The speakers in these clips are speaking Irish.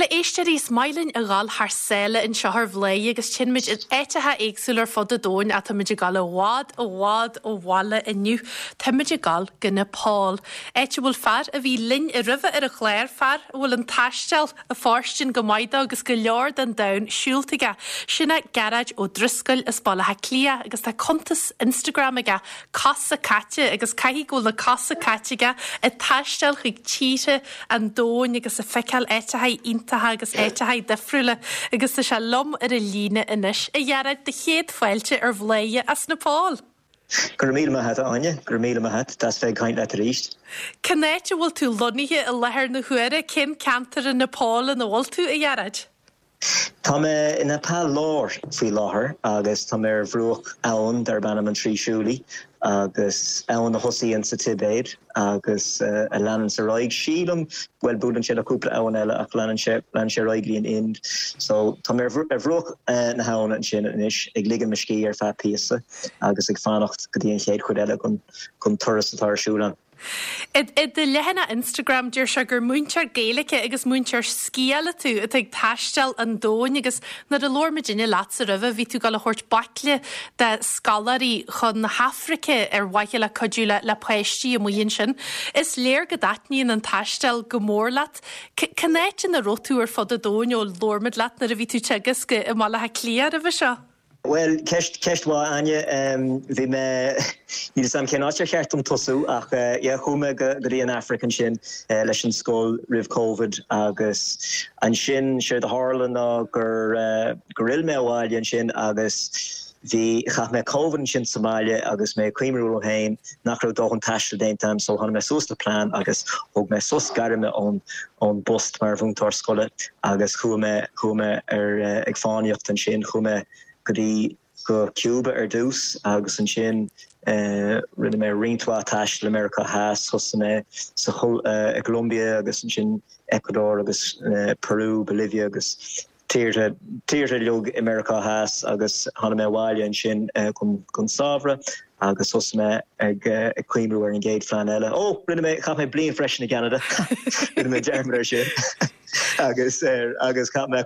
Bhuel, a éisteoirí, is maith linn a dhul thar sáile anseo ar Bhladhaire agus téann muid in áiteacha éagsúla ar fud an domhain ach táimid ag dul i bhfad, i bhfad ó bhaile inniu. Táimid ag dul go Nepal, áit a bhfuil fear a bhí linn roimhe ar an chlár, fear a bhfuil an taisteal ag fóirstean go maith dó agus go leor den domhan siúlta aige. Sin é Gearóid Ó Drisceoil as Baile Átha Cliath agus tá cuntas Instagram aige, Cosa Caite, agus caithfidh go bhfuil na cosa caite aige ag taisteal chuig tíortha an domhain agus ag feiceáil áiteacha iontacha agus áiteacha difriúla agus tá sé liom ar an líne anois. A Ghearóid, do chéad fáilte ar Bhladhaire as Nepal! Go raibh míle maith a't, a Áine. Go raibh míle maith a't. Deas bheith ag caint leat arís. Cén áit a bhfuil tú lonnaithe i láthair na huaire? Cén ceantar i Nepal ina bhfuil tú, a Ghearóid? Tá mé i Nepal Láir faoi láthair agus tá mé ar bhruach abhann darb ainm an Trishuli agus abhainn a thosaíonn sa Tibéid agus a leananns ar aghaidh, sílim, bhuel buaileann sé le cúpla abhainn eile ach leanann sé, leanann sé ar aghaidh go dtí an Ind. So tá mé ar bhruach na habhann ansin anois ag ligean mo scíth ar feadh píosa agus ag fanacht go dtí an chéad chuid eile den turas atá ar siúl agam. I do leathanach Instagram, deir sé gur múinteoir Gaeilge agus múinteoir sciála tú atá ag taisteal an domhain agus nuair a labhair muidinne leatsa roimhe, bhí tú ag dul a thabhairt baicle de scoláirí chun na hAfraice ar mhaithe le cuidiú le le páistí amuigh ansin. Is léir go dtaitníonn an taisteal go mór leat. Cén áit ina raibh tú ar fud an domhain ó labhair muid leat nuair a bhí tú ag teagasc i mBaile Átha Cliath roimhe seo? Bhuel, ceist, ceist mhaith, Áine. Bhí mé, níl 'fhios a'm cén áit ar cheart dom tosú ach yeah, chuaigh mé go, go dtí an Afraic ansin leis an scoil roimh Covid agus ansin séard a tharla ná gur, gur fhill mé abhaile ansin agus bhí, chaith mé Covid ansin sa mbaile agus mé ag cuimhniú liom féin nach raibh dóthain taistil déanta a'm so tháinig mé suas le plean agus thóg mé sos gairme ón, ón bpost mar mhúinteoir scoile agus chuaigh mé, chuaigh mé ar, ag fánaíocht ansin, chuaigh mé go dtí, go Cuba ar dtús agus ansin rinne mé roinnt mhaith taistil i Meiriceá Theas, thosaigh mé sa, i gColombia agus ansin Ecuador agus Peru, Bolivia agus tíortha, tíortha uilig i Meiriceá Theas agus tháinig mé abhaile ansin don samhradh agus thosaigh mé ag ag cuimhniú ar an gcéad phlean eile. Ó, rinne mé, chaith mé bliain freisin i gCeanada, rinne mé dearmad ar sin agus agus chaith mé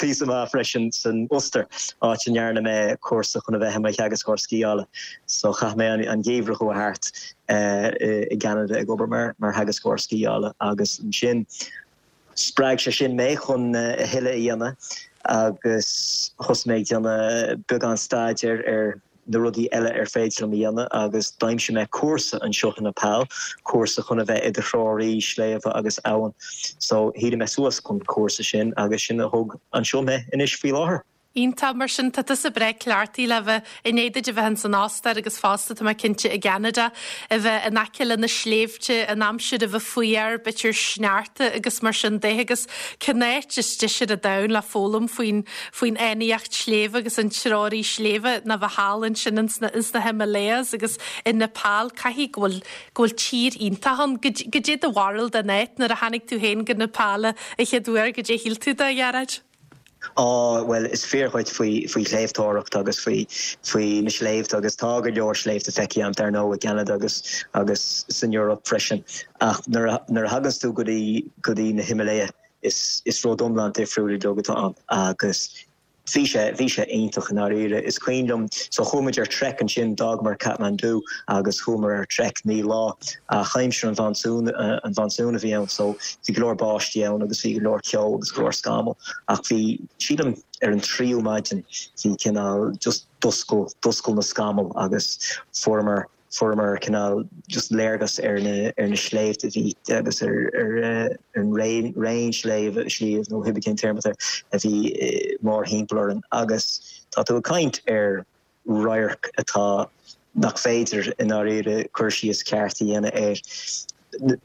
píosa maith freisin san Ostair, áit a ndearna mé cúrsa chun a bheith i mo theagascóir sciála. So chaith mé an geimhreadh a chuaigh thart i gCeanada ag obair mar mar theagascóir sciála agus ansin Spreag sé sin mé chun a thuilleadh a dhéanamh agus thosaigh mé ag déanamh beagán staidéir ar na rudaí eile ar féidir liom a dhéanamh agus d'aimsigh mé cúrsa anseo i Nepal, cúrsa chun a bheith i do threoraí sléibhe agus abhann. So shínigh mé suas chun cúrsa sin agus sin a thug anseo mé anois faoi láthair. Iontach, mar sin tá tusa breá cleachtaithe le bheith, i ndiaidh duit a bheith ins an Ostair agus fosta, tá mé cinnte, i gCeanada, a bheith in aice le na sléibhte, an aimsir a bheith fuar, b'fhéidir sneachta agus mar sin de agus cén áit is deise ar an domhan le foghlaim faoin, faoin fhánaíocht sléibhe agus an treoraí sléibhe ná bheith thall ansin ins na, ins na Himalayas agus i Nepal, caithfidh go bhfuil, go bhfuil tír iontach ann. Goidé do bharúil den áit nuair a tháinig tú féin go Nepal an chéad uair, goidé a shíl tú de, a Ghearóid? Á, bhuel, is fíor dhuit faoi, faoi shléibhteoireacht agus faoi, faoi na sléibhte agus tá go leor sléibhte feicthe agam, dar ndóigh, i gCeanada agus, agus san Eoraip freisin. Ach nuair a, nuair a thaganns tú go dtí, go dtí na Himalaya, is, is rud iomlán difriúil uilig atá ann agus bhí sé, bhí sé iontach i ndáiríre. Is cuimhin liom, so chuaigh muid ar trek ansin, d'fhágamar Kathmandu agus chuamar ar trek 9 lá ach aimsir an mhonsúin, an mhonsúin a bhí ann so bhí go leor báistí ann agus bhí go leor ceo agus go leor scamall ach bhí, sílim ar an tríú maidin bhí cineál just d'oscail, d'oscail na scamaill agus fuaireamar, fuaireamar cineál just léargas ar na, ar na sléibhte a bhí agus ar, ar, ar an raon, raon sléibhe, sliabh nó cibé cén téarma atá air a bhí mórthimpeall orainn agus tá tú ag caint ar radharc atá nach féidir i ndáiríre cur síos ceart a dhéanamh air.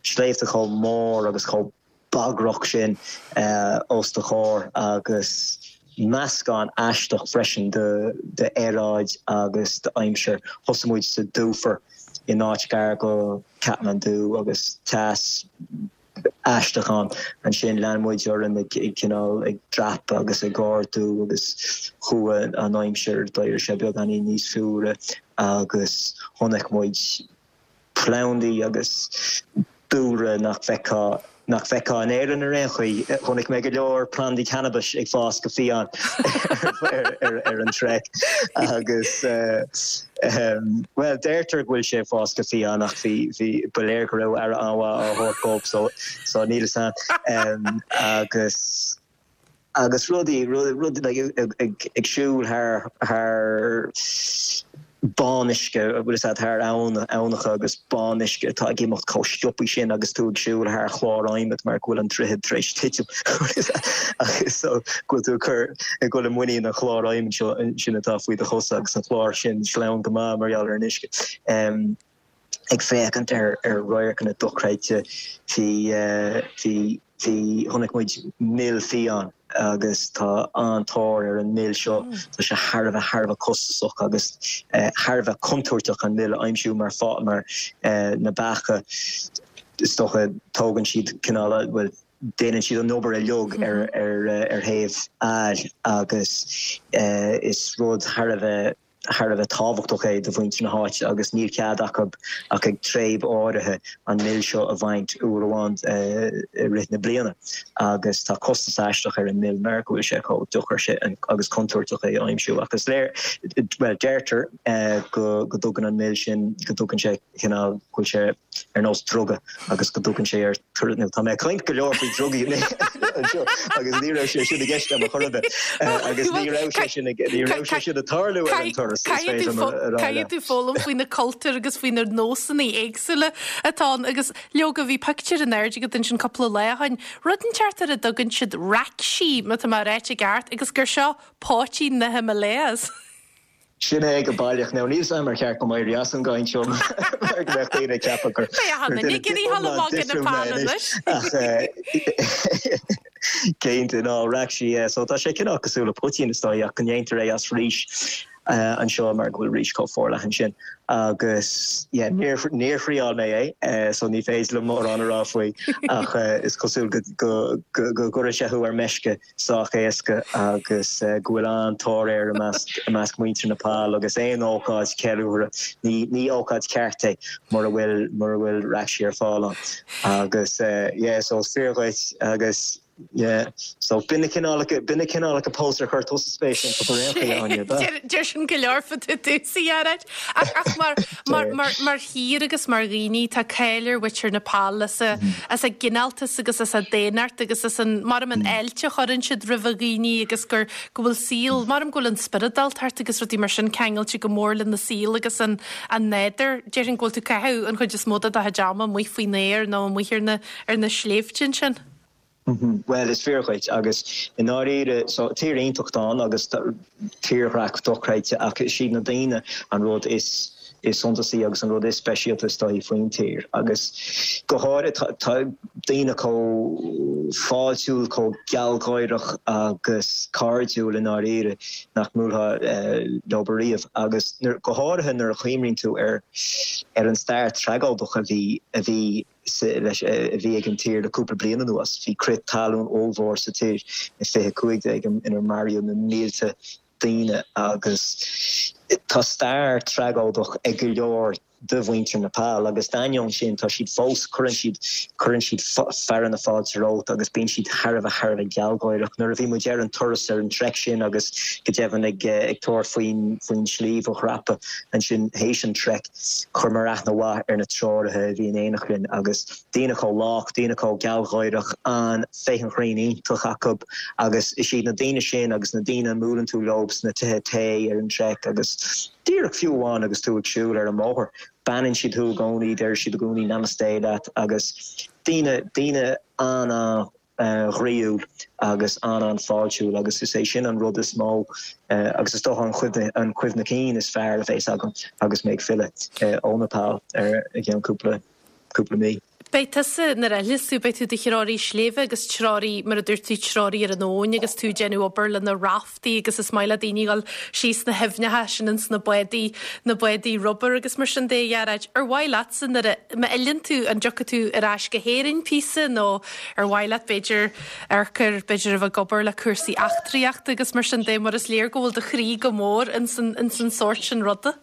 Sléibhte chomh mór agus chomh bagrach sin os do chomhair agus meascán aisteach freisin d'aeráid agus d'aimsir. Thosaigh muid sa dúfair in áit gar go Kathmandu agus teas aisteach ann. Ansin lean muid orainn ag cineál ag dreapadh agus ag ardú agus chuaigh an aimsir, d'éirigh sé beagáinín níos fuaire agus chonaic muid plandaí agus dúlra nach bhfeicfeá. nach bhfeicfeá in Éirinn ar aon chaoi. Chonaic mé go leor plandaí cannabais ag fás go fiáin ar an trek agus bhuel deirtear go bhfuil sé ag fás go fiáin ach bhí bhí ba léir go raibh aire an-mhaith á thabhairt dóibh so so níl fhios a'm agus Agus rudaí, rud, like, ag siúl thar, thar bánuisce, bhfuil fhios a'd, thar abhann, aibhneacha agus bánuisce atá ag imeacht chomh sciobthaí sin agus tú ag siúl thar chlár adhmaid mar go bhfuil an droichead tar éis titim agus so go bhfuil tú ag cur, ag dul i muinín an chláir adhmaid seo sin atá faoi do chosa agus an clár sin sleamhain go maith mar gheall ar an uisce. Ag féachaint ar radharcanna dochreidte, bhí, bhí, bhí, chonaic muid mil fiáin agus tá an-tóir ar an mil seo. Tá sé thar a bheith, thar a bheith costasach agus thar a bheith contúirteach an mil a aimsiú mar fá, mar na beacha, is dócha, tógann siad cineál, bhuel, déanann siad an obair uilig ar, ar, ar thaobh aill agus is rud thar a bheith, thar a bheith tábhachtach é do mhuintir na háite agus níl cead acu ach ag tréib áirithe an mil seo a bhaint uair amháin i rith na bliana agus tá costas aisteach ar an mil mar go bhfuil sé chomh deacair sin agus contúirteach é a aimsiú ach is léir, bhuel deirtear go dtugann an mil sin, go dtugann sé cineál, go bhfuil sé. ar nós druga agus go dtugann sé ar turas nó tá mé ag caint go leor faoi drugaí anseo agus ní raibh sé sin i gceist agam ar chor ar bith agus ní raibh sé sin ní raibh sé sin ag tarlú ar an turas is féidir liom a rá leat. Caithfidh tú foghlaim faoi na cultúir agus faoi na nósanna éagsúla atá ann agus leoga bhí pictiúr in airde agat ansin cúpla lá ó shin, rud inteacht ar a dtugann siad rakshi má tá mé á ráit i gceart agus gur seo poitín na Himalayas. Sin é go baileach. Now níl 's a'm ar cheart dom éirí as an gcaint seo mar go mbeadh daoine ag ceapadh gur duine iomlán difriúil mé anois. Ach cinnte, ná rakshi, yeah. So tá sé cineál cosúil le poitín is dóigh ach go ndéantar é as rís anseo mar go bhfuil rís chomh forleathan sin. Agus yeah, níor níor thriáil mé é so ní féidir liom mórán a rá faoi ach is cosúil go go go gcuireann sé thú ar meisce. sách éasca agus go bhfuil an-tóir air i measc muintir Nepal agus aon ócáid ceiliúrtha, ní ní ócáid ceart é mura bhfuil mura bhfuil rakshi ar fáil ann. Agus yeah so is fíor dhuit agus yeah so b'in na cineálacha b'in na cineálacha post ar chuir tusa spéis iontu ar aon chaoi Áine, ab ea? Deir sin go leor fá dtaobh domhsa a Ghearóid. Ach ach mar mar mar mar thír agus mar dhaoine tá cáil ar mhuintir Nepal as a as a gcineáltas agus as a daonnacht agus as an, maram an fháilte a chuireann siad roimh dhaoine agus gur, go bhfuil saol, maram go bhfuil an spioradáltacht agus rudaí mar sin ceangailte go mór lena saol agus an, an nádúr. Déarfainn go bhfuil tú ag caitheamh an chuid is mó de do chuid ama amuigh faoin aer nó amuigh ar na, ar na sléibhte ansin. Bhuel, is fíor dhuit, agus i ndáiríre, so, tír iontach atá ann agus tírdhreach dochreidte ach is iad na daoine an rud is is suntasaí agus an rud is speisialta is dóichí faoin tír agus go háirithe tá tá daoine chomh fáiltiúil, chomh gealgháireach agus cairdiúil i ndáiríre nach mbuailfeá leo ariamh agus go háirithe nuair a chuimhníonn tú ar ar an stair tragóideach a bhí a bhí leis a bhí ag an tír le cúpla bliain anuas. Bhí crith talún ollmhór sa tír i 2015 inar maraíodh na mílte daoine agus tá stair tragóideach ag go leor de mhuintir Nepal agus d'ainneoin sin tá siad fós, cuireann siad, cuireann siad fearadh na fáilte romhat agus bíonn siad thar a bheith, thar a bheith gealgháireach. Nuair a bhí muid ar an turas ar an trek sin agus go deimhin ag tabhairt faoin, faoin sliabh a dhreapadh ansin théis an trek, Chuireamar aithne mhaith ar na treoraithe a bhí in éineacht linn agus daoine chomh lách, daoine chomh gealgháireach, an féith an chrainn iontach acu agus is iad na daoine sin agus na daoine a mbuaileann tú leo sna tithe tae ar an trek agus díreach fiú amháin agus tú ag siúl ar an mbóthar, beannaíonn siad thú i gcónaí, deir siad i gcónaí namaste leat agus daoine, daoine an-an. ghroíúil agus an-an-fháiltiúil agus is é sin an rud is mó agus is dócha an chuimhne, an chuimhne cinn is fearr a bheas agam agus mé ag filleadh ó Nepal ar i gceann cúpla, cúpla mí. Beidh tusa, nuair a fhilleas tú, beidh tú i do threoraí sléibhe agus treoraí, mar a dúirt tú, treoraí ar an abhainn agus tú ag déanamh obair le na raftaí agus is maith le daoine dhul síos na haibhneacha sin ins na bádaí, na bádaí rubair agus mar sin de, a Ghearóid. Ar mhaith leatsa nuair a, má fhilleann tú, an dtiocfaidh tú ar ais go hÉirinn píosa nó Ar mhaith leat, b'fhéidir, amharc ar, b'fhéidir, a bheith ag obair le cúrsaí eachtraíochta agus mar sin de, mar is léir go bhfuil do chroí go mór ins an, ins an sórt sin ruda?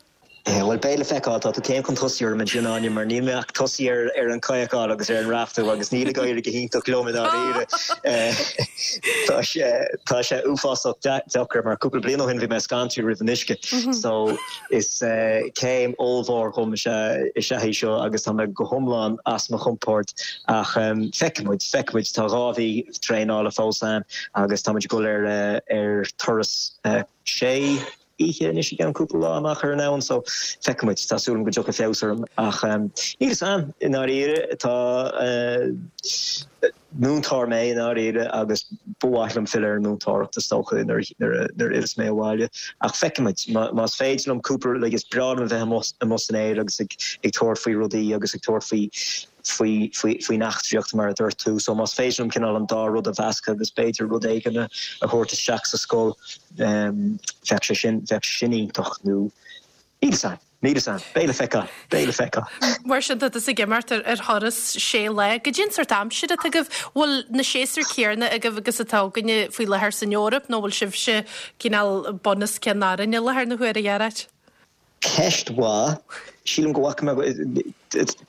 Bhuel, beidh le feiceáil. Tá tú céim chun tosaigh orm ansin, Áine, mar níl mé ach tosaithe ar an chadhcáil agus ar an raftú agus níl ag éirí go hiontach liom i ndáiríre. Tá sé, tá sé uafásach deacair mar cúpla bliain ó shin bhí mé scanraithe roimh an uisce. So is céim ollmhór dhom is ea, is ea í seo agus tá mé go hiomlán as mo chompord. Ach feicfidh muid, feicfidh muid. Tá 2 mhí traenála fós ann agus tá muid ag dul ar, ar turas sé oíche anois i gceann cúpla lá amach ar an abhainn so feicfidh muid. Tá súil agam go dtiocfaidh feabhas orm ach níl fhios a'm i ndáiríre. Tá múinteoir mé i ndáiríre agus ba mhaith liom filleadh ar an múinteoireacht is dócha nuair a fhilleas mé abhaile ach feicfidh muid. Más féidir liom cúpla like is breá liom a bheith amuigh amuigh san aer agus ag ag tabhairt faoi rudaí agus ag tabhairt faoi faoi faoi faoin eachtraíocht mar a dúirt tú. So más féidir liom cineál an dá rud a mheascadh agus b'fhéidir rud éigin a thabhairt isteach sa scoil bheadh sé sin bheadh sé sin iontach nó níl fhios a'm, níl fhios a'm, beidh le feiceáil, beidh le feiceáil. Mar sin tá tusa ag imeacht ar ar thuras sé lá. Goidé an sórt aimsire atá agaibh? Bhfuil na séasúir céarna agaibh agus atá againne faoi láthair san Eoraip nó bhfuil sibhse cineál bun os cionn orainn i láthair na huaire, a Ghearóid? Ceist mhaith. Sílim go bhfaca mé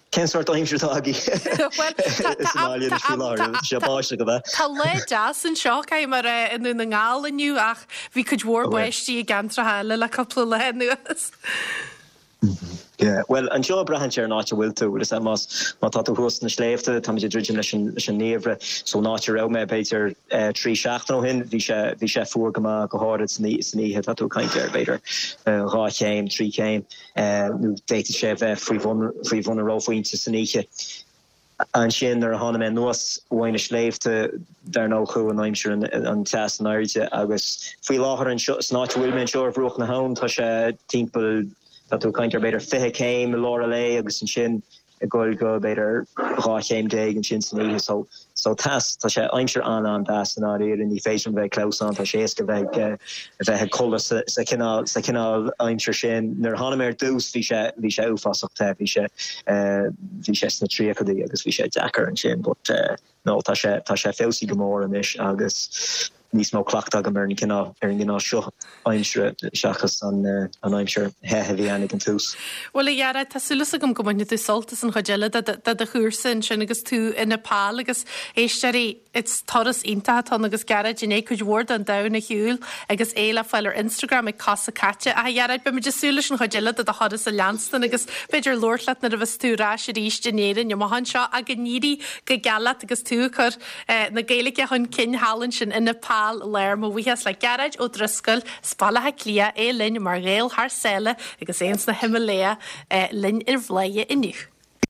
Cén sórt aimsir atá agaibh sa mbaile anois faoi láthair? Tá sé báisteach, ab ea? Tá lá deas anseo, caithfidh mé a rá, i nDún na nGall inniu ach bhí cuid mhór báistí i gceantracha eile le cúpla lá anuas. Yeah, bhuel, anseo braitheann sé ar an áit a bhfuil tú. Bhfuil fhios a'd, más, má tá tú thuas sna sléibhte, táimid ag druidim leis an, leis an ngeimhreadh. So an áit a raibh mé, b'fhéidir, 3 seachtain ó shin, bhí sé, bhí sé fuar go maith, go háirid san, san oíche. Tá tú ag caint ar, b'fhéidir, 2 chéim, 3 chéim, nó d'fhéadfadh sé a bheith faoi bhun, faoi bhun an reophointe san oíche. Ansin nuair a tháinig mé anuas uaidh na sléibhte, dar ndóigh chuaigh an aimsir an teas in airde agus faoi láthair anseo, san áit a bhfuil mé anseo ar bhruach na habhann, tá sé timpeall, tá tú ag caint ar b'fhéidir 20 céim i lár an lae agus ansin ag dul go b'fhéidir 12 chéim ansin san oíche. So, so teas, tá sé aimsir an-an-deas i ndáiríre, ní féidir liom bheith ag clamhsán, tá sé éasca bheith ag, a bheith ag codladh sa, sa chineál, sa chineál aimsir sin. Nuair a tháinig mé ar dtús bhí sé, bhí sé uafásach te, bhí sé, bhí sé sna tríochaidí agus bhí sé deacair ansin but no tá sé, tá sé feabhsaithe go mór anois agus níos mó cleachtadh agam ar an gcineál, ar an gcineál seo aimsire seachas an, an aimsir the a bhí ann ag an tús. Bhuel a Ghearóid, tá súil agam go mbainfidh tú sult as an chuid eile de, de do chúrsa ansin agus tú i Nepal agus éisteoirí, Is turas iontach atá ann agus Gearóid i ndiaidh cuid mhór den domhan a shiúl agus é le fáil ar Instagram ag Cosa Caite. Ach a Ghearóid, beimid ag súil leis an chuid eile de do thuras a leanstan agus b'fhéidir labhairt leat nuair a bheas tú ar ais arís in Éirinn amach anseo ach go n-éirí go geal leat agus tú ag cur na Gaeilge chun cinn thall ansin i Nepal Láir. Mo bhuíochas le Gearóid Ó Drisceoil as Baile Átha Cliath, é linn mar Ghael thar sáile agus é ins na Himalaya linn ar Bhladhaire inniu.